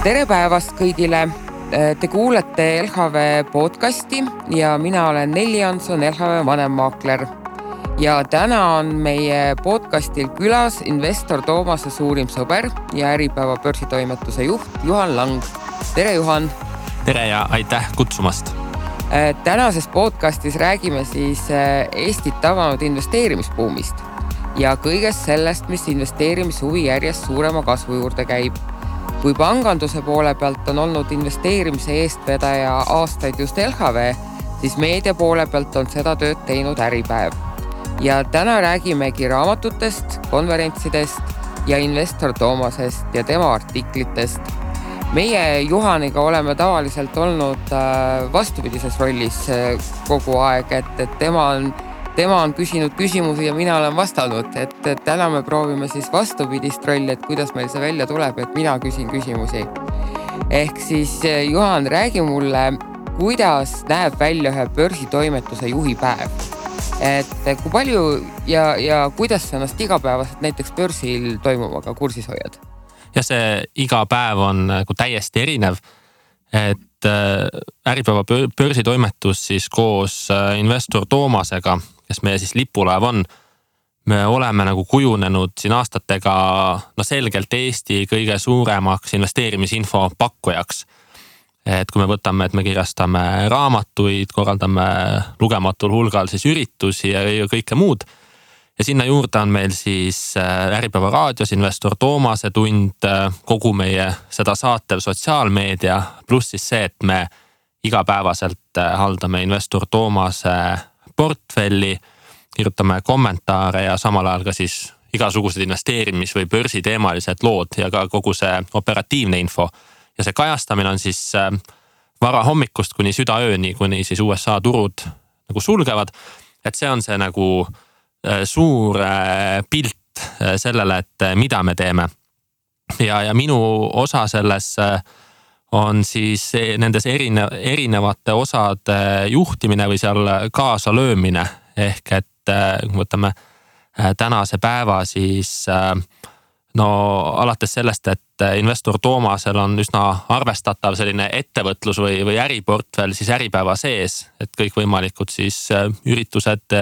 Tere päevast kõigile! Te kuulete LHV podcasti ja mina olen Nelli Jansson, LHV vanemmaakler. Ja täna on meie podcastil külas investor Toomase suurim sõber ja Äripäeva börsitoimetuse juht Juhan Lang. Tere Juhan! Tere ja aitäh kutsumast! Tänases podcastis räägime siis Eestit tabanud investeerimisbuumist ja kõigest sellest, mis investeerimishuvi järjest suurema kasvu juurde käib. Kui panganduse poole pealt on olnud investeerimise eestvedaja aastaid just LHV, siis meedia poole pealt on seda tööd teinud Äripäev. Ja täna räägimegi raamatutest, konverentsidest ja investor Toomasest ja tema artiklitest. Meie Juhaniga oleme tavaliselt olnud vastupidises rollis kogu aeg, et tema on küsinud küsimusi ja mina olen vastanud, et täna me proovime siis vastupidist rolli, et kuidas meil see välja tuleb, et mina küsin küsimusi. Ehk siis Juhan, räägi mulle, kuidas näeb välja ühe börsitoimetuse juhipäev. Et kui palju ja kuidas sa ennast igapäevaselt näiteks börsil toimuvaga kursis hoiad? Ja see iga päev on täiesti erinev, et Äripäeva börsitoimetus siis koos investor Toomasega, kes meie siis lipulaev on, me oleme kujunenud siin aastatega selgelt Eesti kõige suuremaks investeerimisinfo pakkujaks. Et kui me võtame, et me kirjastame raamatuid, korraldame lugematul hulgal siis üritusi ja kõike muud. Ja sinna juurde on meil siis Äripäeva raadios investor Toomase tund, kogu meie seda saatev sotsiaalmeedia, pluss siis see, et me igapäevaselt haldame investor Toomase portfelli, kirjutame kommentaare ja samal ajal ka siis igasugused investeerimis- või börsiteemalised lood ja ka kogu see operatiivne info. Ja see kajastamine on siis vara hommikust kuni südaööni, kuni siis USA turud sulgevad. Et see on see suur pilt sellele, et mida me teeme. Ja minu osa selles on siis nendes erinevate osade juhtimine või seal kaasa löömine. Ehk et kui võtame tänase päeva, siis alates sellest, et investor Toomasel on üsna arvestatav selline ettevõtlus või äriportfell siis Äripäeva sees, et kõik võimalikud siis üritused,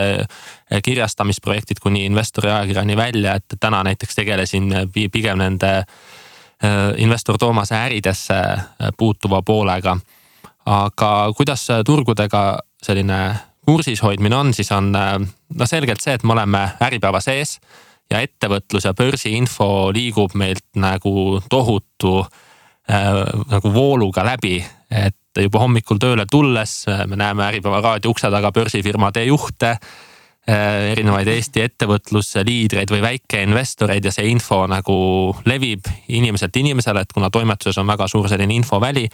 kirjastamisprojektid kuni investori ajakirjani välja, et täna näiteks tegelesin pigem nende investor Toomase äridesse puutuva poolega. Aga kuidas turgudega selline kursis hoidmine on, siis on selgelt see, et me oleme Äripäeva sees ja ettevõtlus ja börsiinfo liigub meilt tohutu vooluga läbi, et juba hommikul tööle tulles me näeme Äripäeva raadio ukse taga börsifirmade juhte, erinevaid Eesti ettevõtlusliidreid või väikeinvestoreid ja see info levib inimeselt inimesele, et kuna toimetuses on väga suur selline infoväli,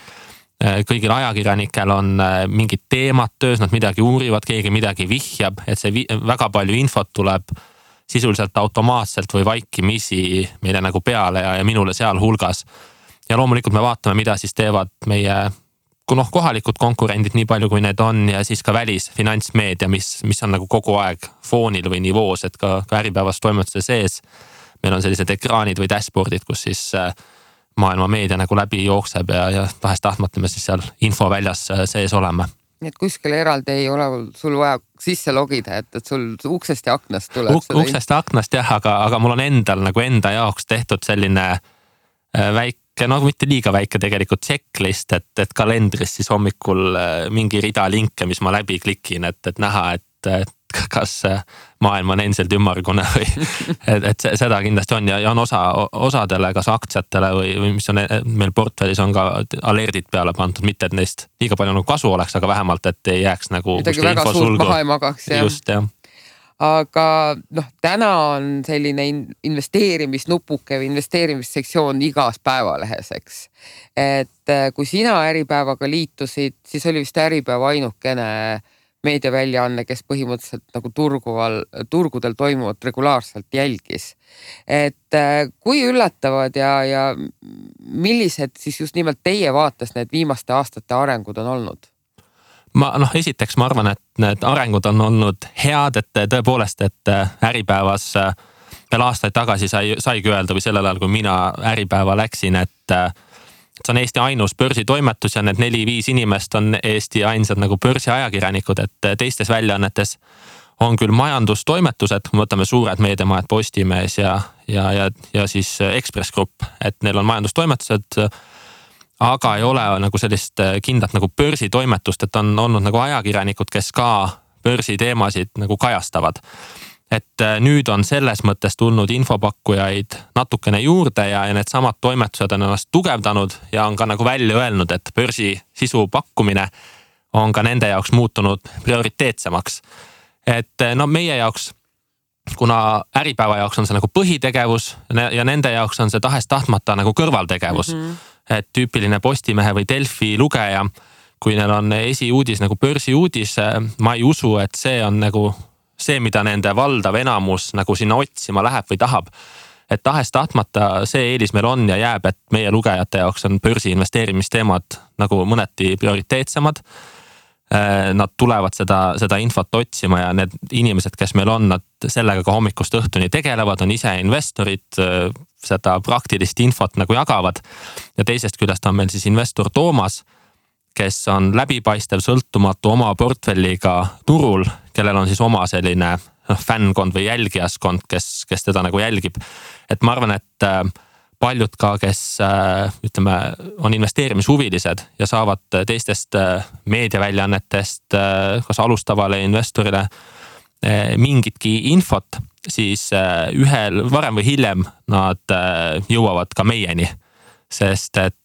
kõigil ajakirjanikel on mingid teemad töös, nad midagi uurivad, keegi midagi vihjab, et see väga palju infot tuleb sisuliselt automaatselt või vaikimisi meile peale ja minule seal hulgas. Ja loomulikult me vaatame, mida siis teevad meie kohalikud konkurendid nii palju, kui need on ja siis ka välisfinantsmeedia, mis on kogu aeg foonil või nivoos, et ka Äripäevas toimetuse sees. Meil on sellised ekraanid või dashboardid, kus siis maailma meedia läbi jookseb ja tahest tahtmata me siis seal infoväljas sees oleme. Nii et kuskil eraldi ei ole sul vaja sisse logida, et sul uksest ja aknast tuleb Uksest ja aknast jah, aga mul on endal enda jaoks tehtud selline väike, mitte liiga väike tegelikult checklist, et kalendris siis hommikul mingi rida linke, mis ma läbi klikin, et näha, et kas maailm on endiselt ümmargune või et seda kindlasti on ja on osadele, kas aktsiatele või mis on meil portfellis on ka alerdid peale pandud, mitte et neist liiga palju kasu oleks, aga vähemalt, et ei jääks midagi väga suurt maha ei magaks. Just, jah. Aga täna on selline investeerimisnupuke või investeerimissektsioon igas päevalehes, eks. Et kui sina Äripäevaga liitusid, siis oli vist Äripäeva ainukene meediaväljaanne, kes põhimõtteliselt turgudel toimuvat regulaarselt jälgis. Et kui üllatavad ja millised siis just nimelt teie vaates need viimaste aastate arengud on olnud? Esiteks ma arvan, et need arengud on olnud head, et tõepoolest, et Äripäevas veel aastaid tagasi saigi öelda või sellel ajal, kui mina Äripäeva läksin, et see on Eesti ainus börsitoimetus ja need 4-5 inimest on Eesti ainsad nagu börsiajakirjanikud, et teistes väljaannetes on küll majandustoimetused, kui võtame suured meediamajad Postimees ja siis Ekspress Grupp, et neil on majandustoimetused, aga ei ole nagu sellist kindlat nagu börsitoimetust, et on olnud nagu ajakirjanikud, kes ka börsiteemasid nagu kajastavad. Et nüüd on selles mõttes tulnud infopakkujaid natukene juurde ja need samad toimetused on ennast tugevdanud ja on ka nagu välja öelnud, et börsi sisu pakkumine on ka nende jaoks muutunud prioriteetsemaks. Et no meie jaoks, kuna Äripäeva jaoks on see nagu põhitegevus ja nende jaoks on see tahes-tahtmata nagu kõrvaltegevus. Et tüüpiline Postimehe või Delfi lugeja, kui neil on esiuudis nagu börsiuudis, ma ei usu, et see on nagu see, mida nende valdav enamus nagu sinna otsima läheb või tahab. Et tahes-tahtmata see eelis meil on ja jääb, et meie lugejate jaoks on börsi investeerimisteemad nagu mõneti prioriteetsemad. Nad tulevad seda infot otsima ja need inimesed, kes meil on, nad sellega ka hommikust õhtuni tegelevad, on ise investorid, seda praktilist infot nagu jagavad. Ja teisest küljest on meil siis investor Toomas, kes on läbipaistev, sõltumatu oma portfelliga turul, kellel on siis oma selline fännkond või jälgijaskond, kes teda nagu jälgib. Et ma arvan, et paljud ka, kes ütleme, on investeerimishuvilised ja saavad teistest meediaväljaannetest kas alustavale investorile mingitki infot, siis ühel varem või hiljem nad jõuavad ka meieni. Sest et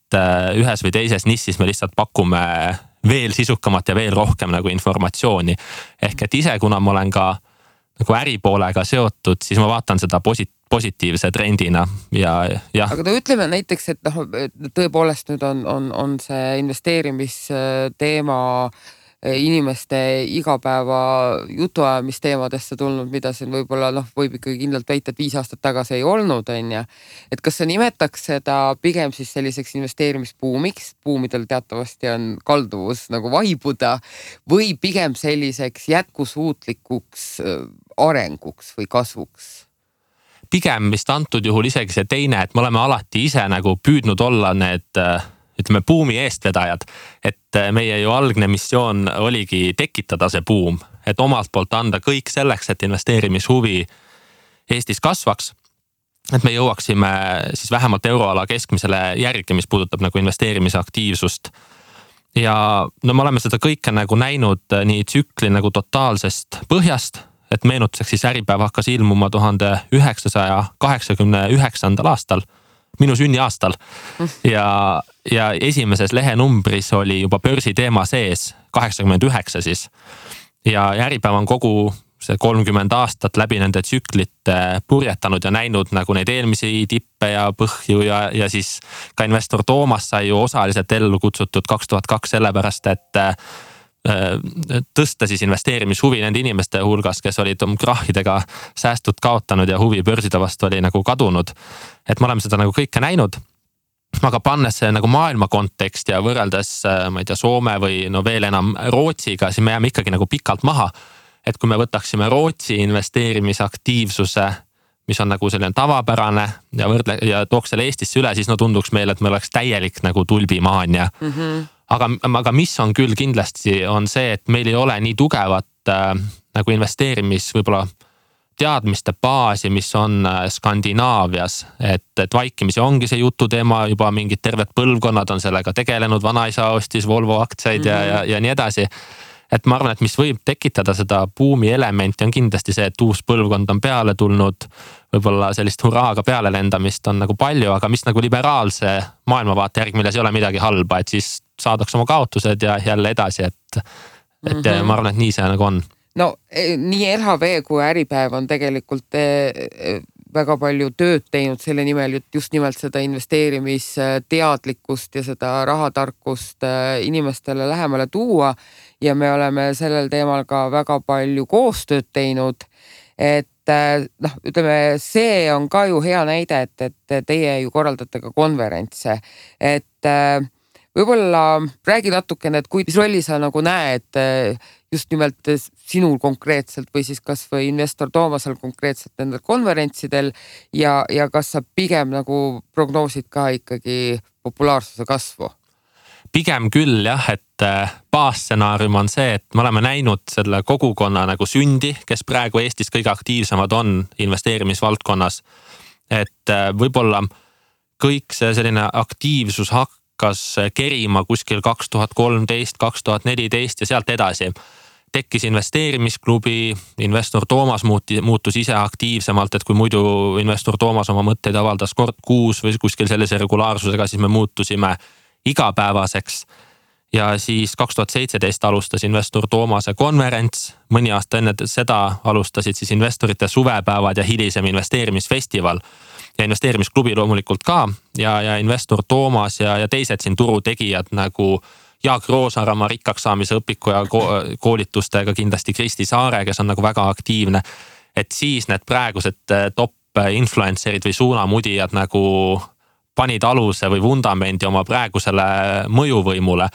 ühes või teises nissis me lihtsalt pakume veel sisukamat ja veel rohkem nagu informatsiooni. Ehk et ise, kuna ma olen ka nagu äripoolega seotud, siis ma vaatan seda positiivse trendina ja. Aga ütleme näiteks, et tõepoolest nüüd on see investeerimisteema inimeste igapäeva jutuajamisteemadesse tulnud, mida siin võib-olla võib ikkagi kindlalt väita, et 5 aastat tagasi ei olnud, on ja. Et kas sa nimetaks seda pigem siis selliseks investeerimisbuumiks, buumidel teatavasti on kalduvus nagu vaibuda, või pigem selliseks jätkusuutlikuks arenguks või kasvuks? Pigem vist antud juhul isegi see teine, et me oleme alati ise nagu püüdnud olla need ütleme buumi eestvedajad, et meie ju algne missioon oligi tekitada see buum, et omalt poolt anda kõik selleks, et investeerimishuvi Eestis kasvaks, et me jõuaksime siis vähemalt euroala keskmisele järgi, mis puudutab nagu investeerimisaktiivsust. Ja no me oleme seda kõike nagu näinud nii tsükli nagu totaalsest põhjast, et meenutuseks siis Äripäev hakkas ilmuma 1989. aastal, minu sünniaastal ja esimeses lehenumbris oli juba börsiteema sees 89 siis ja Äripäev on kogu see 30 aastat läbi nende tsüklite purjetanud ja näinud nagu neid eelmisi tippe ja põhju ja siis ka investor Toomas sai ju osaliselt ellu kutsutud 2002 sellepärast, et tõsta siis investeerimishuvi nende inimeste hulgas, kes olid krahhidega säästud kaotanud ja huvi börside vastu oli nagu kadunud. Et me oleme seda nagu kõike näinud, aga pannes see nagu maailma kontekst ja võrreldes, ma ei tea, Soome või no veel enam Rootsiga, siis me jääme ikkagi nagu pikalt maha. Et kui me võtaksime Rootsi investeerimisaktiivsuse, mis on nagu selline tavapärane ja tooks selle Eestisse üle, siis no tunduks meile, et me oleks täielik nagu tulbimaania. Aga mis on küll kindlasti on see, et meil ei ole nii tugevat nagu investeerimis võib-olla teadmiste baasi, mis on Skandinaavias, et vaikimisi ongi see jututeema, juba mingid terved põlvkonnad on sellega tegelenud, vanaisa ostis Volvo aktsiaid ja nii edasi. Et ma arvan, et mis võib tekitada seda buumi elementi on kindlasti see, et uus põlvkond on peale tulnud, võib-olla sellist hurraaga peale lendamist on nagu palju, aga mis nagu liberaalse maailmavaate järgi, milles ei ole midagi halba, et siis saadaks oma kaotused ja jälle edasi, et ma arvan, et nii see nagu on. No nii LHV kui Äripäev on tegelikult väga palju tööd teinud selle nimel, just nimelt seda investeerimisteadlikkust ja seda rahatarkust inimestele lähemale tuua ja me oleme sellel teemal ka väga palju koostööd teinud, et ütleme, see on ka ju hea näide, et teie ju korraldate ka konverentse, et Võib-olla räägi natukene, et mis rolli sa nagu näed just nimelt sinul konkreetselt või siis kas või investor Toomasel konkreetselt nendel konverentsidel ja kas sa pigem nagu prognoosid ka ikkagi populaarsuse kasvu? Pigem küll jah, et baasstsenaarium on see, et me oleme näinud selle kogukonna nagu sündi, kes praegu Eestis kõige aktiivsemad on investeerimisvaldkonnas. Et võib-olla kõik see selline aktiivsus hakkas kerima kuskil 2013, 2014 ja sealt edasi. Tekkis investeerimisklubi, investor Toomas muutus ise aktiivsemalt, et kui muidu investor Toomas oma mõtteid avaldas kord kuus või kuskil sellise regulaarsusega, siis me muutusime igapäevaseks. Ja siis 2017 alustas investor Toomase konverents, mõni aasta enne seda alustasid siis investorite suvepäevad ja hilisem investeerimisfestival. Ja investeerimisklubi loomulikult ka ja investor Toomas ja teised siin turutegijad nagu Jaak Roosaarama rikkaks saamise õpiku ja koolitustega kindlasti Kristi Saare, kes on nagu väga aktiivne. Et siis need praegused top influencerid või suunamudijad nagu panid aluse või vundamendi oma praegusele mõjuvõimule.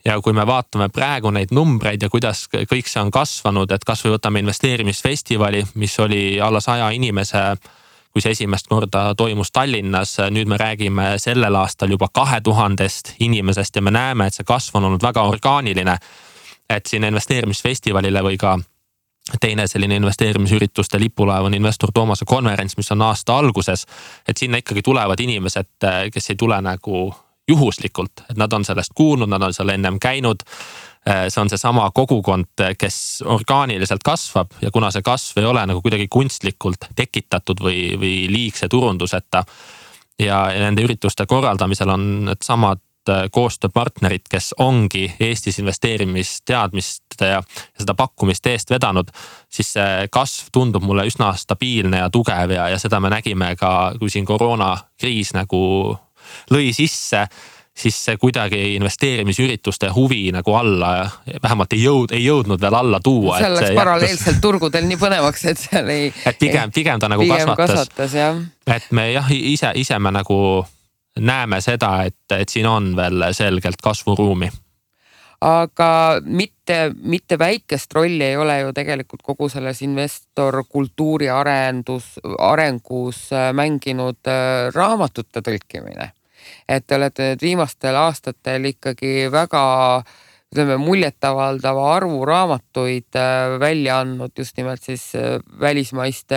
Ja kui me vaatame praegu neid numbreid ja kuidas kõik see on kasvanud, et kas või võtame investeerimisfestivali, mis oli alla 100 inimese, kui see esimest korda toimus Tallinnas, nüüd me räägime sellel aastal juba 2000 inimesest ja me näeme, et see kasv on olnud väga orgaaniline. Et siin investeerimisfestivalile või ka teine selline investeerimisürituste lipulaev on investor Toomase konverents, mis on aasta alguses, et sinna ikkagi tulevad inimesed, kes ei tule nagu juhuslikult, et nad on sellest kuulnud, nad on seal ennem käinud. See on see sama kogukond, kes orgaaniliselt kasvab ja kuna see kasv ei ole nagu kuidagi kunstlikult tekitatud või liigse turunduseta ja nende ürituste korraldamisel on need samad koostööpartnerid, kes ongi Eestis investeerimisteadmist ja seda pakkumist eest vedanud, siis see kasv tundub mulle üsna stabiilne ja tugev ja seda me nägime ka, kui siin koroonakriis nagu lõi sisse, siis see kuidagi investeerimisürituste huvi nagu alla ja vähemalt ei jõudnud veel alla tuua. Seal läks paralleelselt turgudel nii põnevaks, et seal ei... Et pigem ta nagu kasvatas. Et me jah, ise me nagu näeme seda, et siin on veel selgelt kasvuruumi. Aga mitte väikest rolli ei ole ju tegelikult kogu selles investor kultuuri arengus mänginud raamatute tõlkimine. Et te olete nüüd viimastel aastatel ikkagi väga muljetavaldava arvu raamatuid välja andnud just nimelt siis välismaiste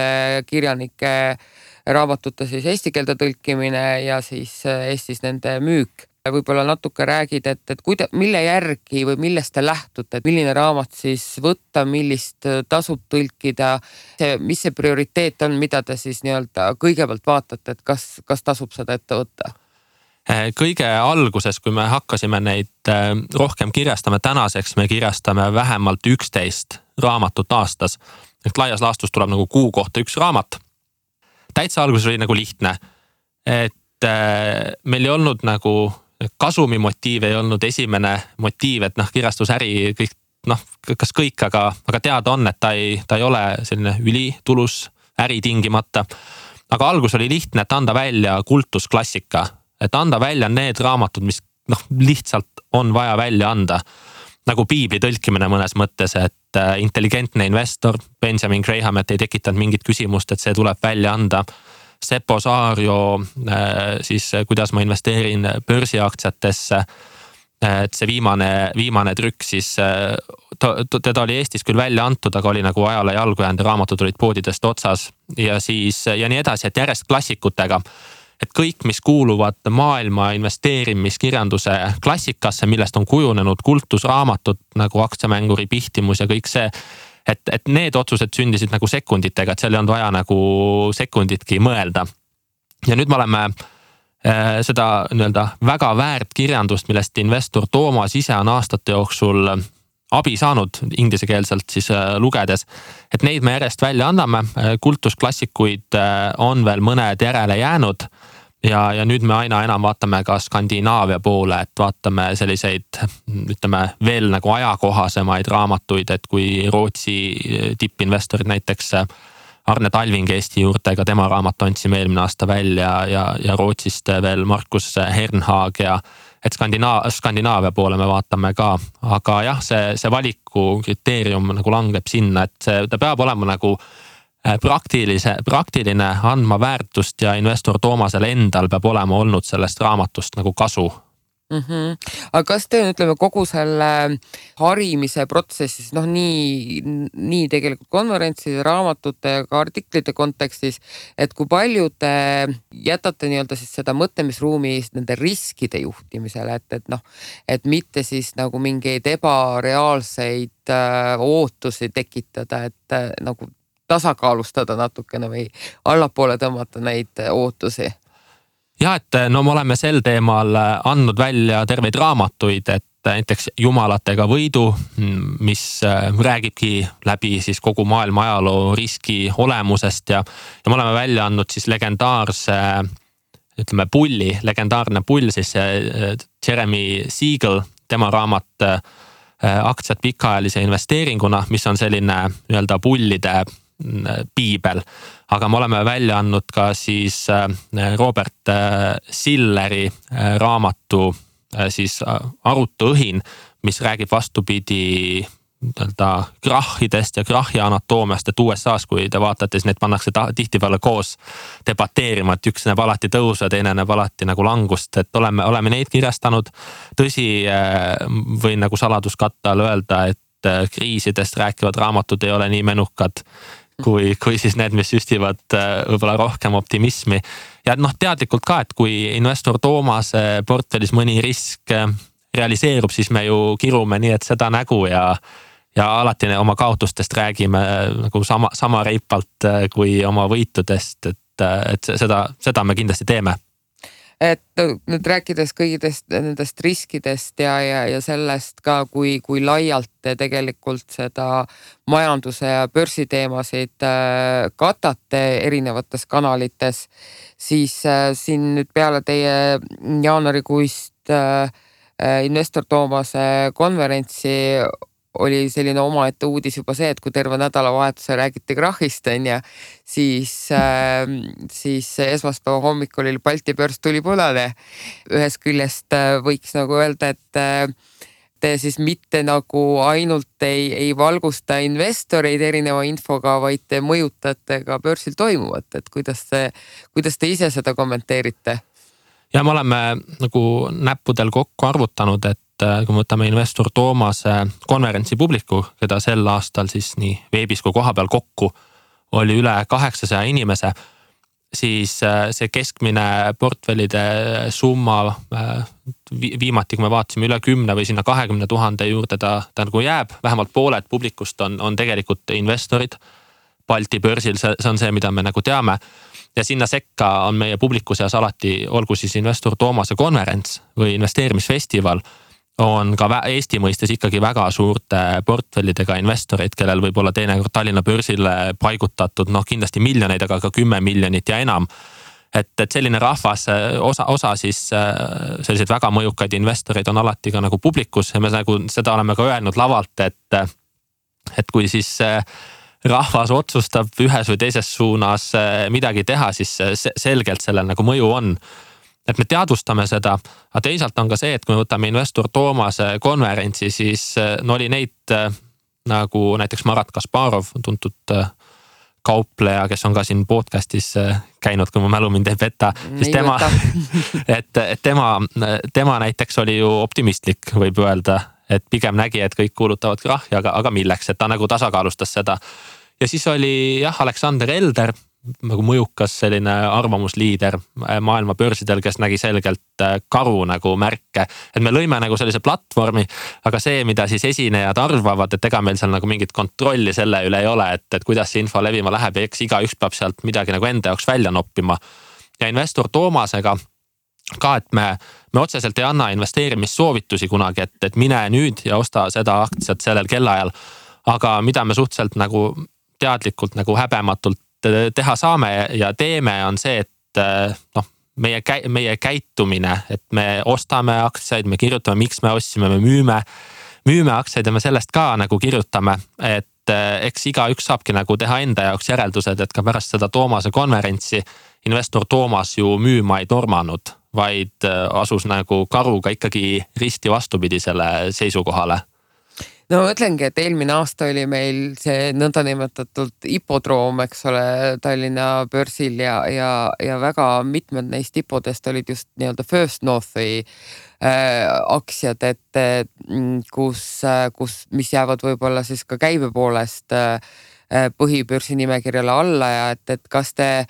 kirjanike raamatute siis eesti keelde tõlkimine ja siis Eestis nende müük. Võib-olla natuke räägid, et mille järgi või millest te lähtute, et milline raamat siis võtta, millist tasub tõlkida, mis see prioriteet on, mida te siis nii-öelda kõigepealt vaatate, et kas tasub seda ette võtta? Kõige alguses, kui me hakkasime neid rohkem kirjastama, tänaseks me kirjastame vähemalt 11 raamatut aastas. Et laias laastus tuleb nagu kuu kohta üks raamat. Täitsa alguses oli nagu lihtne, et meil ei olnud nagu kasumi motiiv, ei olnud esimene motiiv, et kirjastusäri kõik, kas kõik, aga teada on, et ta ei ole selline ülitulus äri tingimata. Aga algus oli lihtne, et anda välja kultusklassika, et anda välja need raamatud, mis lihtsalt on vaja välja anda. Nagu piibli tõlkimine mõnes mõttes, et intelligentne investor, Benjamin Graham, et ei tekitanud mingit küsimust, et see tuleb välja anda. Seppo Saario, siis kuidas ma investeerin börsiaktsiatesse, et see viimane trükk siis, teda oli Eestis küll välja antud, aga oli nagu ajale jalgu jäänud, raamatud olid poodidest otsas ja siis ja nii edasi, et järjest klassikutega. Et kõik, mis kuuluvad maailma investeerimiskirjanduse klassikasse, millest on kujunenud kultusraamatud nagu aktsiamänguri pihtimus ja kõik see, et need otsused sündisid nagu sekunditega, et seal ei olnud vaja nagu sekunditki mõelda. Ja nüüd me oleme seda nii-öelda väga väärt kirjandust, millest investor Toomas ise on aastate jooksul abi saanud inglisekeelselt siis lugedes, et neid me järjest välja anname, kultusklassikuid on veel mõned järele jäänud ja nüüd me aina enam vaatame ka Skandinaavia poole, et vaatame selliseid, ütleme, veel nagu ajakohasemaid raamatuid, et kui Rootsi tippinvestorid näiteks Arne Talving Eesti juurtega, tema raamat andsime eelmine aasta välja ja Rootsist veel Markus Hernhaag ja et Skandinaavia poole me vaatame ka, aga jah, see valiku kriteerium nagu langeb sinna, et ta peab olema nagu praktiline, andma väärtust ja investor Toomasel endal peab olema olnud sellest raamatust nagu kasu. Aga kas te ütleme kogu selle harimise protsessis, nii tegelikult konverentside, raamatute ja ka artiklite kontekstis, et kui palju te jätate nii-öelda siis seda mõtlemisruumi nende riskide juhtimisele, et mitte siis nagu mingeid ebareaalseid ootusi tekitada, et nagu tasakaalustada natukene või allapoole tõmmata neid ootusi? Ja, et me oleme sel teemal andnud välja terveid raamatuid, et näiteks Jumalatega võidu, mis räägibki läbi siis kogu maailma ajaloo riski olemusest ja me oleme välja andnud siis legendaarse, legendaarne pull siis Jeremy Siegel, tema raamat Aktsiad pikaajalise investeeringuna, mis on selline nii-öelda pullide piibel, aga me oleme välja andnud ka siis Robert Silleri raamatu siis Arutuõhin, mis räägib vastupidi krahhidest ja krahhi anatoomiast, et USA-s, kui te vaatate, siis need pannakse tihtipeale koos debateerima, et üks näeb alati tõusu ja teine näeb alati nagu langust, et oleme neid kirjastanud. Tõsi, võin nagu saladuskatte all öelda, et kriisidest rääkivad raamatud ei ole nii menukad kui siis need, mis süstivad võib-olla rohkem optimismi. Ja teadlikult ka, et kui investor Toomase portfellis mõni risk realiseerub, siis me ju kirume nii, et seda nägu ja alati oma kaotustest räägime nagu sama reipalt kui oma võitudest, et seda me kindlasti teeme. Et nüüd rääkides kõigidest nendest riskidest ja sellest ka, kui laialt te tegelikult seda majanduse ja börsiteemasid katate erinevates kanalites, siis siin nüüd peale teie jaanuarikuist investor Toomase konverentsi oli selline omaette uudis juba see, et kui terve nädalavahetuse räägiti krahhist, siis esmaspäeva hommikul Balti börs tuli punane. Ühest küljest võiks nagu öelda, et te siis mitte nagu ainult ei valgusta investoreid erineva infoga, vaid te mõjutate ka börsil toimuvat, et kuidas te ise seda kommenteerite? Ja me oleme nagu näppudel kokku arvutanud, et kui me võtame investor Toomase konverentsi publiku, keda sel aastal siis nii veebis kui koha peal kokku oli üle 800 inimese, siis see keskmine portfellide summa viimati, kui me vaatasime üle 10 või sinna 20 000 juurde, ta nagu jääb, vähemalt pooled publikust on tegelikult investorid Balti börsil, see on see, mida me nagu teame. Ja sinna sekka on meie publiku seas alati, olgu siis investor Toomase konverents või investeerimisfestival, on ka Eesti mõistes ikkagi väga suurte portfellidega investoreid, kellel võib olla teinekord Tallinna börsile paigutatud kindlasti miljoneid, aga ka 10 miljonit ja enam. Et selline rahvas, osa siis selliseid väga mõjukaid investoreid on alati ka nagu publikus ja me nagu seda oleme ka öelnud lavalt, et kui siis rahvas otsustab ühes või teises suunas midagi teha, siis selgelt sellel nagu mõju on. Et me teadvustame seda, aga teisalt on ka see, et kui me võtame investor Toomase konverentsi, siis oli neid nagu näiteks Marat Kasparov, tuntud kaupleja, kes on ka siin podcastis käinud, kui mu mälu mind ei peta, siis tema näiteks oli ju optimistlik, võib öelda, et pigem nägi, et kõik kuulutavad krahhi, aga milleks, et ta nagu tasakaalustas seda. Ja siis oli Aleksander Elder, nagu mõjukas selline arvamusliider maailma börsidel, kes nägi selgelt karu nagu märke. Et me lõime nagu sellise platvormi, aga see, mida siis esinejad arvavad, et ega meil seal nagu mingit kontrolli selle üle ei ole, et kuidas see info levima läheb ja eks igaüks peab sealt midagi nagu enda jaoks välja noppima. Ja investor Toomasega ka, et me otseselt ei anna investeerimissoovitusi kunagi, et mine nüüd ja osta seda aktsiat sellel kellaajal. Aga mida me suhteliselt nagu teadlikult nagu häbematult teha saame ja teeme, on see, et meie käitumine, et me ostame aktsiaid, me kirjutame, miks me ostsime, me müüme aktsiaid ja me sellest ka nagu kirjutame, et eks igaüks saabki nagu teha enda jaoks järeldused, et ka pärast seda Toomase konverentsi investor Toomas ju müüma ei tormanud, vaid asus nagu karuga ikkagi risti vastupidisele seisukohale. No ma mõtlengi, et eelmine aasta oli meil see nõndanimetatud hipodroom, eks ole, Tallinna börsil ja väga mitmed neist hipodest olid just nii-öelda First Northi aktsiad, et mis jäävad võib-olla siis ka käibe poolest põhibörsi nimekirjale alla ja et kas te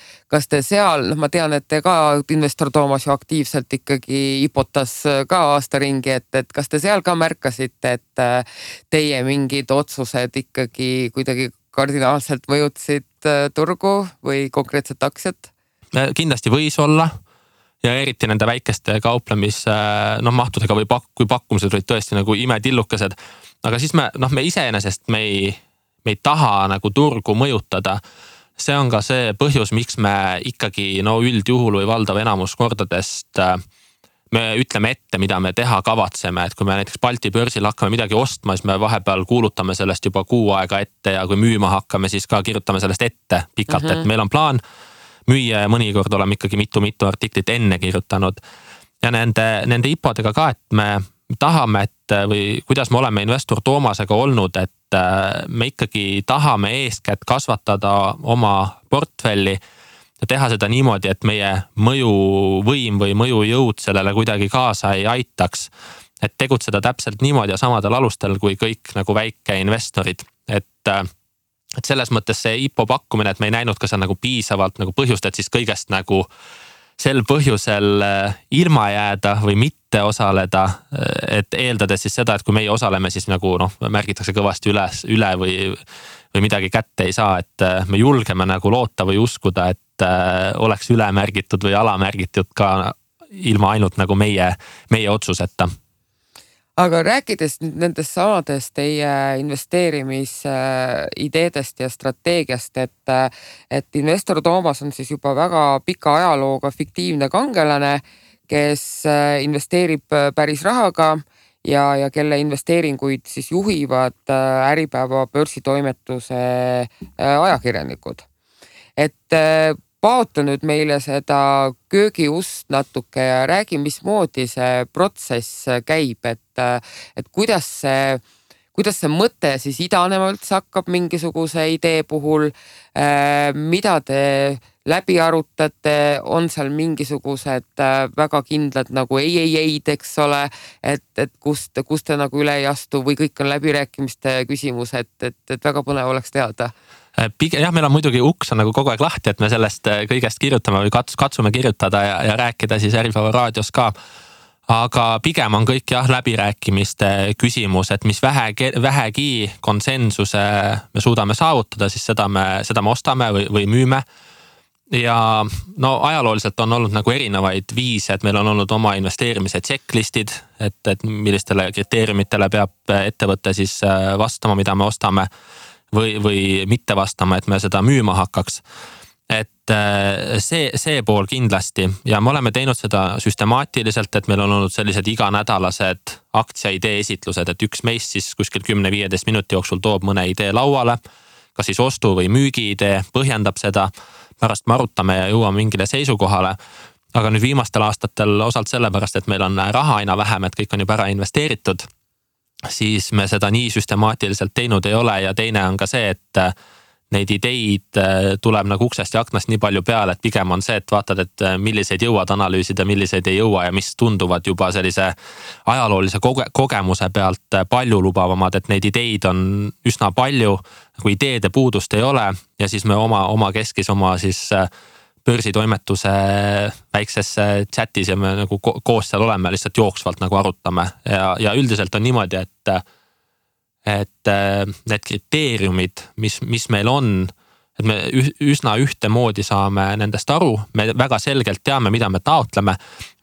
seal, ma tean, et te ka Investor Toomas ju aktiivselt ikkagi hipotas ka aasta ringi, et kas te seal ka märkasite, et teie mingid otsused ikkagi kuidagi kardinaalselt mõjutasid turgu või konkreetset aktsiat? Kindlasti võis olla ja eriti nende väikeste mahtudega või kui pakkumised olid tõesti nagu imetillukesed, aga siis me iseenesest me ei taha nagu turgu mõjutada. See on ka see põhjus, miks me ikkagi üldjuhul või valdav enamus kordadest me ütleme ette, mida me teha kavatseme, et kui me näiteks Balti börsil hakkame midagi ostma, siis me vahepeal kuulutame sellest juba kuu aega ette ja kui müüma hakkame, siis ka kirjutame sellest ette pikalt, et meil on plaan müüa ja mõnikord oleme ikkagi mitu artiklit enne kirjutanud. Ja nende hipodega ka, et me tahame, või kuidas me oleme Investor Toomasega olnud, et me ikkagi tahame eeskätt kasvatada oma portfelli ja teha seda niimoodi, et meie mõjuvõim või mõjujõud sellele kuidagi kaasa ei aitaks. Et tegutseda täpselt niimoodi ja samadel alustel kui kõik nagu väikeinvestorid. Et selles mõttes see IPO pakkumine, et me ei näinud ka seal nagu piisavalt nagu põhjust, et siis kõigest nagu sel põhjusel ilma jääda või mitte osaleda, et eeldades siis seda, et kui meie osaleme, siis nagu märgitakse kõvasti üle või midagi kätte ei saa, et me julgeme nagu loota või uskuda, et oleks üle märgitud või alamärgitud ka ilma ainult nagu meie otsuseta. Aga rääkides nüüd nendest samadest teie investeerimisideedest ja strateegiast, et Investor Toomas on siis juba väga pika ajalooga fiktiivne kangelane, kes investeerib päris rahaga ja kelle investeeringuid siis juhivad Äripäeva börsitoimetuse ajakirjanikud. Et paota nüüd meile seda köögiust natuke ja räägi, mismoodi see protsess käib, et kuidas see mõte siis idanema üldse hakkab mingisuguse idee puhul, mida te läbi arutate, on seal mingisugused väga kindlad nagu ei-ei-eid, eks ole, et kust te nagu üle ei astu või kõik on läbirääkimiste küsimus, et väga põnev oleks teada. Jah, meil on muidugi uks on nagu kogu aeg lahti, et me sellest kõigest kirjutame või katsume kirjutada ja rääkida siis Äripäeva raadios ka. Aga pigem on kõik läbirääkimiste küsimus, et mis vähegi konsensuse me suudame saavutada, siis seda me ostame või müüme. Ja ajalooliselt on olnud nagu erinevaid viise, et meil on olnud oma investeerimise checklistid, et millistele kriteeriumitele peab ettevõte siis vastama, mida me ostame või mitte vastama, et me seda müüma hakkaks. Et see pool kindlasti ja me oleme teinud seda süstemaatiliselt, et meil on olnud sellised iganädalased aktsiaidee esitlused, et üks meist siis kuskil 10-15 minuti jooksul toob mõne idee lauale, kas siis ostu või müügi idee, põhjendab seda, pärast me arutame ja jõuame mingile seisukohale. Aga nüüd viimastel aastatel osalt sellepärast, et meil on raha aina vähem, et kõik on juba ära investeeritud, siis me seda nii süstemaatiliselt teinud ei ole ja teine on ka see, et neid ideid tuleb nagu uksest ja aknast nii palju peale, et pigem on see, et vaatad, et milliseid jõuad analüüsida, milliseid ei jõua ja mis tunduvad juba sellise ajaloolise kogemuse pealt palju lubavamad, et neid ideid on üsna palju, kui ideede puudust ei ole ja siis me oma keskis oma siis börsitoimetuse väikses chatis ja me nagu koos seal oleme, lihtsalt jooksvalt nagu arutame ja üldiselt on niimoodi, et need kriteeriumid, mis meil on, et me üsna ühtemoodi saame nendest aru, me väga selgelt teame, mida me taotleme,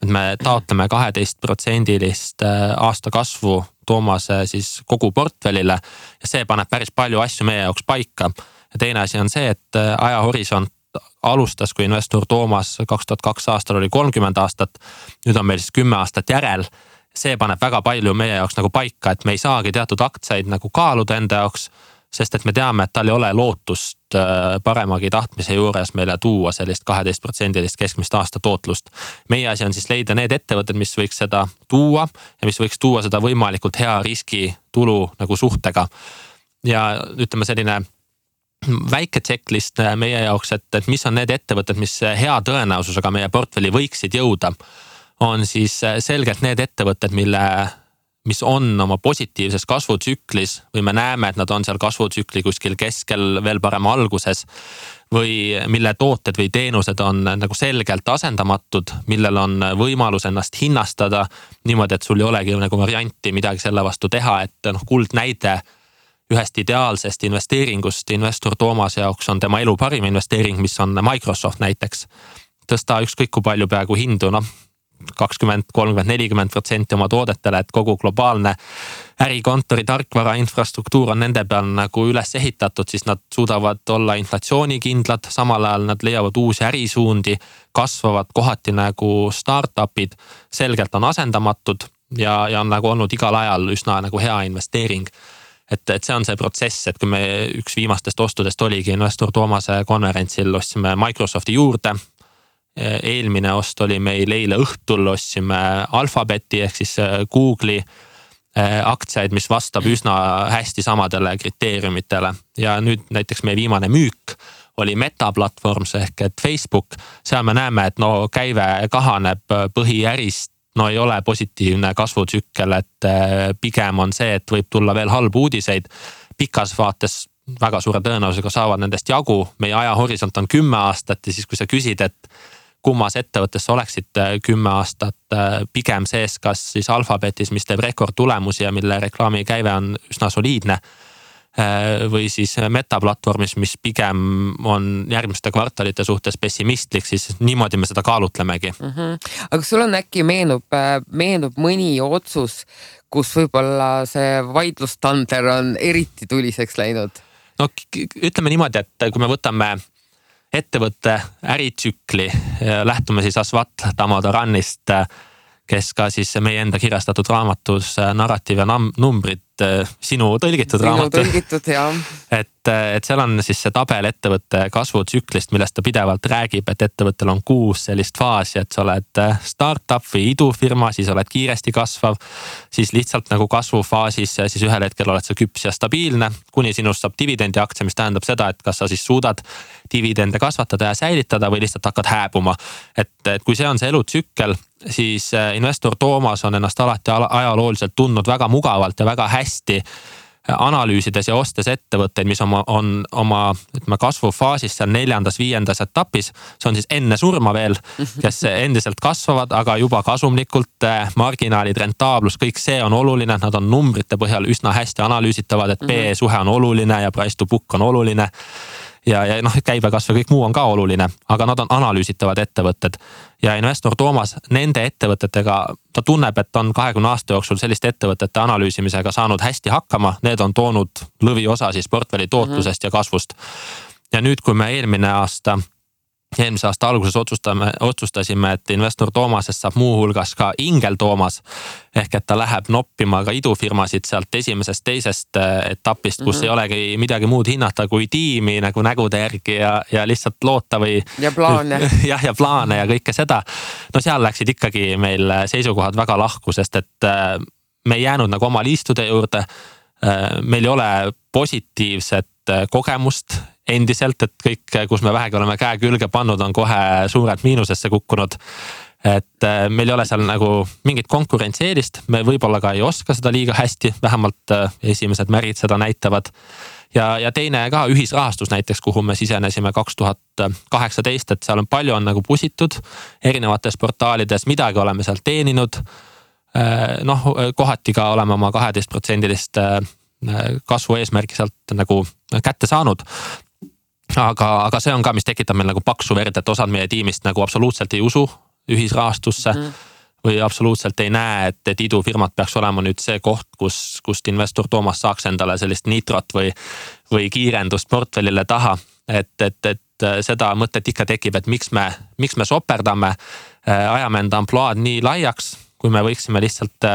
et me taotleme 12% aasta kasvu Toomase siis kogu portfellile ja see paneb päris palju asju meie jaoks paika. Ja teine asi on see, et ajahorisont alustas, kui Investor Toomas 2002 aastal oli 30 aastat, nüüd on meil siis 10 aastat järel. See paneb väga palju meie jaoks nagu paika, et me ei saagi teatud aktsiaid nagu kaaluda enda jaoks, sest et me teame, et tal ei ole lootust paremagi tahtmise juures meile tuua sellist 12% keskmist aasta tootlust. Meie asi on siis leida need ettevõtted, mis võiks seda tuua ja mis võiks tuua seda võimalikult hea riski tulu nagu suhtega. Ja ütleme selline väike checklist meie jaoks, et mis on need ettevõtted, mis hea tõenäosusega meie portfelli võiksid jõuda, on siis selgelt need ettevõtted, mis on oma positiivses kasvutsüklis või me näeme, et nad on seal kasvutsükli kuskil keskel, veel parem alguses või mille tooted või teenused on nagu selgelt asendamatud, millel on võimalus ennast hinnastada niimoodi, et sul ei olegi nagu varianti midagi selle vastu teha, et kuldnäide ühest ideaalsest investeeringust investor Toomase jaoks on tema elu parim investeering, mis on Microsoft näiteks. Tõsta ükskõik kui palju peaaegu hindu, 20, 30, 40% oma toodetele, et kogu globaalne ärikontori tarkvara infrastruktuur on nende peal nagu üles ehitatud, siis nad suudavad olla inflatsioonikindlad, samal ajal nad leiavad uusi ärisuundi, kasvavad kohati nagu startupid, selgelt on asendamatud ja on nagu olnud igal ajal üsna nagu hea investeering. Et see on see protsess, et kui me üks viimastest ostudest oligi investor Toomase konverentsil, ostsime Microsofti juurde. Eelmine ost oli meil eile õhtul, ostsime Alphabeti ehk siis Google'i aktsiaid, mis vastab üsna hästi samadele kriteeriumitele. Ja nüüd näiteks meie viimane müük oli Meta platvorms ehk et Facebook. Seal me näeme, et käive kahaneb põhiärist, ei ole positiivne kasvutsükkel, et pigem on see, et võib tulla veel halbu uudiseid. Pikas vaates väga suure tõenäosusega saavad nendest jagu. Meie ajahorisont on 10 aastat ja siis kui sa küsid, et kummas ettevõttes oleksid 10 aastat pigem sees, kas siis Alphabetis, mis teeb rekordtulemusi ja mille reklaami käive on üsna soliidne, või siis Meta platvormis, mis pigem on järgmiste kvartalite suhtes pessimistlik, siis niimoodi me seda kaalutlemegi. Aga sul on äkki meenub mõni otsus, kus võib-olla see vaidlustander on eriti tuliseks läinud? Ütleme niimoodi, et kui me võtame ettevõtte äritsükli, lähtume siis Asvat Damodaranist, kes ka siis meie enda kirjastatud raamatus Narratiiv ja numbrid, sinu tõlgitud raamat. Et seal on siis see tabel ettevõtte kasvutsüklist, millest ta pidevalt räägib, et ettevõttel on 6 sellist faasi, et sa oled startup või idufirma, siis oled kiiresti kasvav, siis lihtsalt nagu kasvufaasis, siis ühel hetkel oled sa küps ja stabiilne, kuni sinust saab dividendi aktsia, mis tähendab seda, et kas sa siis suudad dividende kasvatada ja säilitada või lihtsalt hakkad hääbuma. Et kui see on see elutsükkel, siis investor Toomas on ennast alati ajalooliselt tundnud väga mugavalt ja väga hästi analüüsides ja ostes ettevõtteid, mis on oma kasvufaasis seal 4., 5. etapis. See on siis enne surma veel, kes endiselt kasvavad, aga juba kasumlikult, marginaalid, rentaablus, kõik see on oluline. Nad on numbrite põhjal üsna hästi analüüsitavad, et PE suhe on oluline ja price to book on oluline. Ja käibekasv ja kõik muu on ka oluline, aga nad on analüüsitavad ettevõtted. Ja investor Toomas nende ettevõtetega, ta tunneb, et on 20 aasta jooksul selliste ettevõtete analüüsimisega saanud hästi hakkama. Need on toonud lõviosa siis portfelli tootlusest ja kasvust. Ja nüüd, kui me eelmise aasta alguses otsustasime, et investor Toomasest saab muuhulgas ka Ingel Toomas, ehk et ta läheb noppima ka idufirmasid sealt esimesest, teisest etapist, kus ei olegi midagi muud hinnata kui tiimi nagu nägude järgi ja lihtsalt loota või... Ja plaane. Ja plaane ja kõike seda. Seal läksid ikkagi meil seisukohad väga lahku, sest et me ei jäänud nagu oma liistude juurde. Meil ei ole positiivset kogemust endiselt, et kõik, kus me vähegi oleme käe külge pannud, on kohe suurelt miinusesse kukkunud. Et meil ei ole seal nagu mingit konkurentsieelist, me võib-olla ka ei oska seda liiga hästi, vähemalt esimesed märgid seda näitavad. Ja teine ka ühisrahastus näiteks, kuhu me sisenesime 2018, et seal on palju on nagu pusitud erinevates portaalides, midagi oleme seal teeninud. Kohati ka oleme oma 12% kasvu eesmärgi sealt nagu kätte saanud. Aga see on ka, mis tekitab meil nagu paksu verd, et osad meie tiimist nagu absoluutselt ei usu ühisrahastusse või absoluutselt ei näe, et idufirmad peaks olema nüüd see koht, kust investor Toomas saaks endale sellist nitrot või kiirendust portfellile taha. Et seda mõtet ikka tekib, et miks me soperdame, ajame enda amploaad nii laiaks, kui me võiksime lihtsalt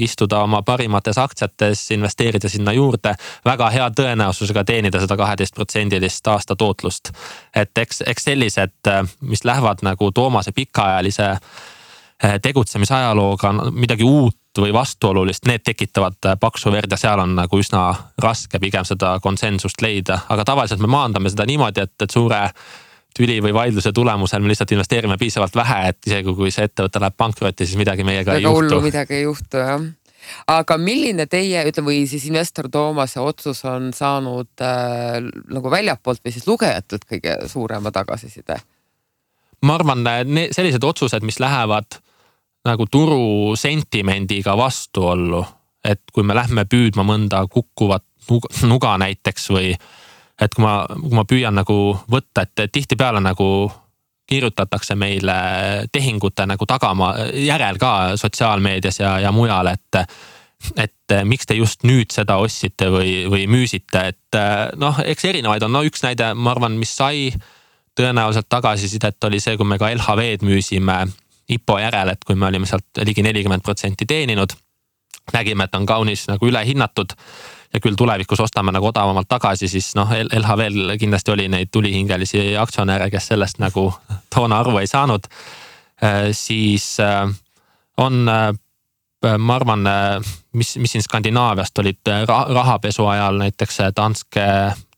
istuda oma parimates aktsiates, investeerida sinna juurde, väga hea tõenäosusega teenida seda 12% aasta tootlust. Et eks sellised, mis lähevad nagu Toomase pikaajalise tegutsemisajalooga midagi uut või vastuolulist, need tekitavad paksu verd ja seal on nagu üsna raske pigem seda konsensust leida. Aga tavaliselt me maandame seda niimoodi, et suure tüli või vaidluse tulemusel me lihtsalt investeerime piisavalt vähe, et isegi kui see ettevõte läheb pankrotti, siis midagi meiega ei juhtu. Midagi ei juhtu, jah. Aga milline teie, või siis investor Toomase otsus on saanud nagu väljapoolt või siis lugejatelt kõige suurema tagasiside? Ma arvan, sellised otsused, mis lähevad nagu turu sentimendiga vastuollu, et kui me lähme püüdma mõnda kukkuvat nuga näiteks või et kui ma püüan nagu võtta, et tihtipeale nagu kirjutatakse meile tehingute nagu tagama järel ka sotsiaalmeedias ja mujal, et miks te just nüüd seda ostsite või müüsite, et noh, eks erinevaid on, üks näide, ma arvan, mis sai tõenäoliselt tagasisidet oli see, kui me ka LHV-d müüsime IPO järel, et kui me olime sealt ligi 40% teeninud, nägime, et on kaunis nagu ülehinnatud ja küll tulevikus ostame nagu odavamalt tagasi, siis noh, LHV-l kindlasti oli neid tulihingelisi aktsionäre, kes sellest nagu toona aru ei saanud. Siis on, ma arvan, mis siin Skandinaaviast olid rahapesu ajal näiteks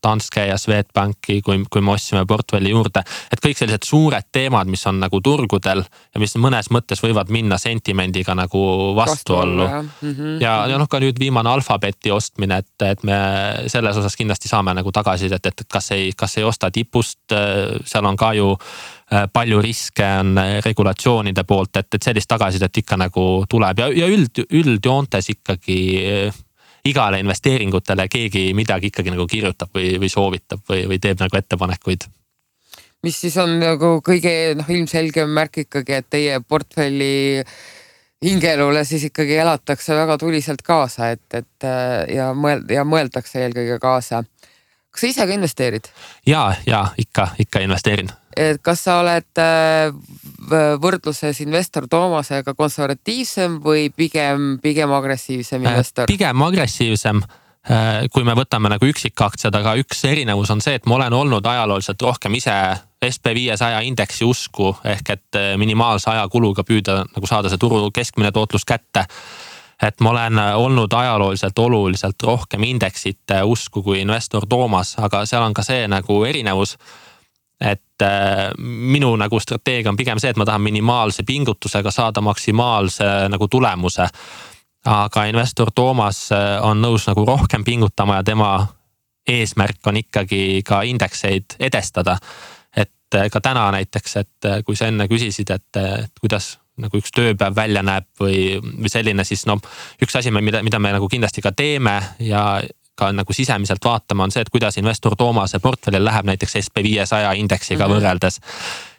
Danske ja Swedbanki, kui me ostsime portfelli juurde, et kõik sellised suured teemad, mis on nagu turgudel ja mis mõnes mõttes võivad minna sentimendiga nagu vastuollu. Ja noh, ka nüüd viimane Alphabeti ostmine, et me selles osas kindlasti saame nagu tagasisidet, et kas ei osta tipust, seal on ka ju palju riske on regulatsioonide poolt, et sellist tagasisidet ikka nagu tuleb ja üldjoontes ikkagi igale investeeringutele keegi midagi ikkagi nagu kirjutab või soovitab või teeb nagu ettepanekuid. Mis siis on nagu kõige ilmselgem märk ikkagi, et teie portfelli hingelule siis ikkagi elatakse väga tuliselt kaasa, ja mõeldakse eelkõige kaasa. Kas sa ise ka investeerid? Ja ikka investeerin. Kas sa oled võrdluses investor Toomasega konservatiivsem või pigem agressiivsem investor? Pigem agressiivsem, kui me võtame nagu üksikaktsiad, aga üks erinevus on see, et ma olen olnud ajalooliselt rohkem ise SP500 indeksi usku, ehk et minimaalse ajakuluga püüda nagu saada see turu keskmine tootlus kätte. Et ma olen olnud ajalooliselt oluliselt rohkem indeksite usku kui investor Toomas, aga seal on ka see nagu erinevus, et minu nagu strateegia on pigem see, et ma tahan minimaalse pingutusega saada maksimaalse nagu tulemuse. Aga investor Toomas on nõus nagu rohkem pingutama ja tema eesmärk on ikkagi ka indekseid edestada. Et ka täna näiteks, et kui sa enne küsisid, et kuidas nagu üks tööpäev välja näeb või selline, siis üks asi, mida me nagu kindlasti ka teeme ja ka nagu sisemiselt vaatama on see, et kuidas investor Toomase portfellil läheb näiteks SP500 indeksiga võrreldes.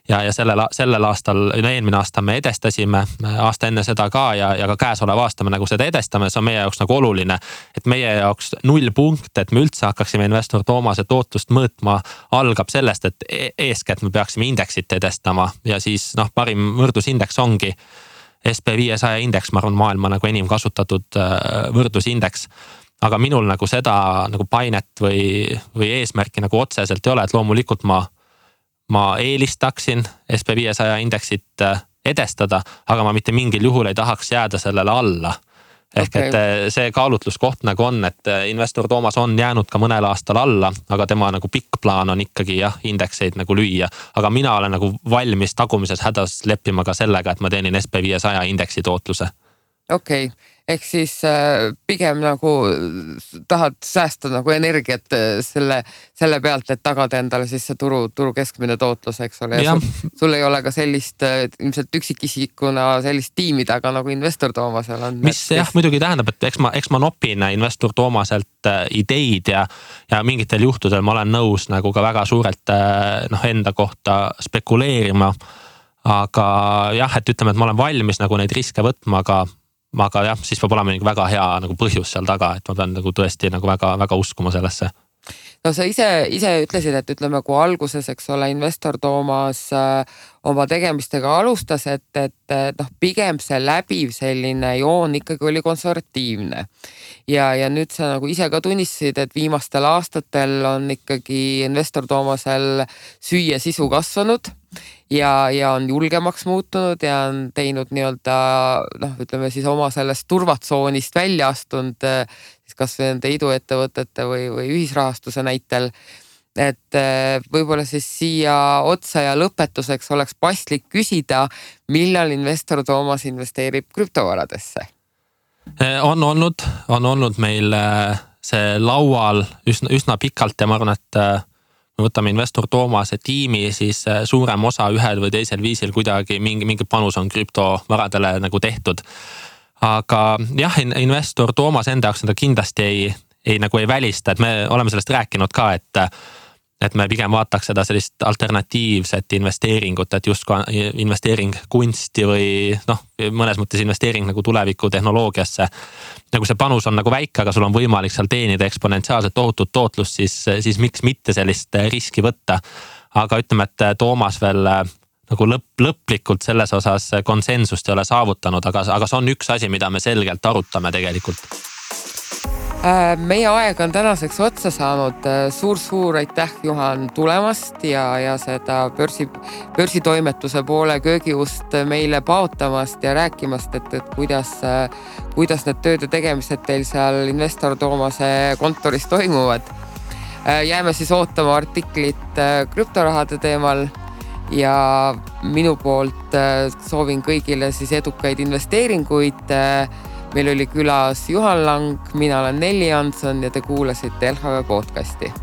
Ja sellel aastal, eelmine aasta me edestasime, aasta enne seda ka ja ka käesoleva aasta me nagu seda edestame, see on meie jaoks nagu oluline, et meie jaoks 0 punkt, et me üldse hakkaksime investor Toomase tootlust mõõtma, algab sellest, et eeskätt me peaksime indeksit edestama ja siis parim võrdlusindeks ongi SP500 indeks, ma arvan, maailma nagu enim kasutatud võrdlusindeks. Aga minul nagu seda nagu painet või eesmärki nagu otseselt ei ole, et loomulikult ma eelistaksin SP500 indeksit edestada, aga ma mitte mingil juhul ei tahaks jääda sellele alla. Ehk et see kaalutluskoht nagu on, et investor Toomas on jäänud ka mõnel aastal alla, aga tema nagu pikk plaan on ikkagi indekseid nagu lüüa. Aga mina olen nagu valmis tagumises hädas leppima ka sellega, et ma teenin SP500 indeksi tootluse. Okei. Ehk siis pigem nagu tahad säästa nagu energiat selle pealt, et tagada endale siis see turu keskmine tootlus, eks ole. Ja sul ei ole ka sellist ilmselt üksikisikuna sellist tiimi taga nagu investor Toomasel on. Mis muidugi tähendab, et eks ma nopin investor Toomaselt ideid ja mingitel juhtudel ma olen nõus nagu ka väga suurelt enda kohta spekuleerima. Aga et ütleme, et ma olen valmis nagu neid riske võtma, aga siis peab olema väga hea nagu põhjus seal taga, et ma pean nagu tõesti nagu väga, väga uskuma sellesse. No sa ise ütlesid, et ütleme, kui alguses, eks ole, investor Toomas oma tegemistega alustas, et pigem see läbiv selline joon ikkagi oli konservatiivne. Ja nüüd sa nagu ise ka tunnistasid, et viimastel aastatel on ikkagi investor Toomasel süüa sisu kasvanud ja on julgemaks muutunud ja on teinud nii-öelda ütleme siis oma sellest turvatsoonist välja astunud siis kas või nende iduettevõtete või ühisrahastuse näitel. Et võib-olla siis siia otsa ja lõpetuseks oleks paslik küsida, millal investor Toomas investeerib krüptovaradesse? On olnud meil see laual üsna pikalt ja ma arvan, et me võtame investor Toomase tiimi, siis suurem osa ühel või teisel viisil kuidagi mingi panus on krüptovaradele nagu tehtud. Aga jah, investor Toomas enda jaoks seda kindlasti ei välista, et me oleme sellest rääkinud ka, et me pigem vaataks seda sellist alternatiivset investeeringut, et just investeering kunsti või mõnes mõttes investeering nagu tuleviku tehnoloogiasse. Nagu see panus on nagu väike, aga sul on võimalik seal teenida eksponentsiaalselt tohutut tootlust, siis miks mitte sellist riski võtta. Aga ütleme, et Toomas veel nagu lõplikult selles osas konsensust ei ole saavutanud, aga see on üks asi, mida me selgelt arutame tegelikult. Meie aeg on tänaseks otsa saanud. Suur aitäh, Juhan, tulemast ja seda börsitoimetuse poole köögiust meile paotamast ja rääkimast, et kuidas need tööd ja tegemised teil seal investor Toomase kontoris toimuvad. Jääme siis ootama artiklit krüptorahade teemal ja minu poolt soovin kõigile siis edukaid investeeringuid. Meil oli külas Juhan Lang, mina olen Nelli Jansson ja te kuulasite LHV podcasti.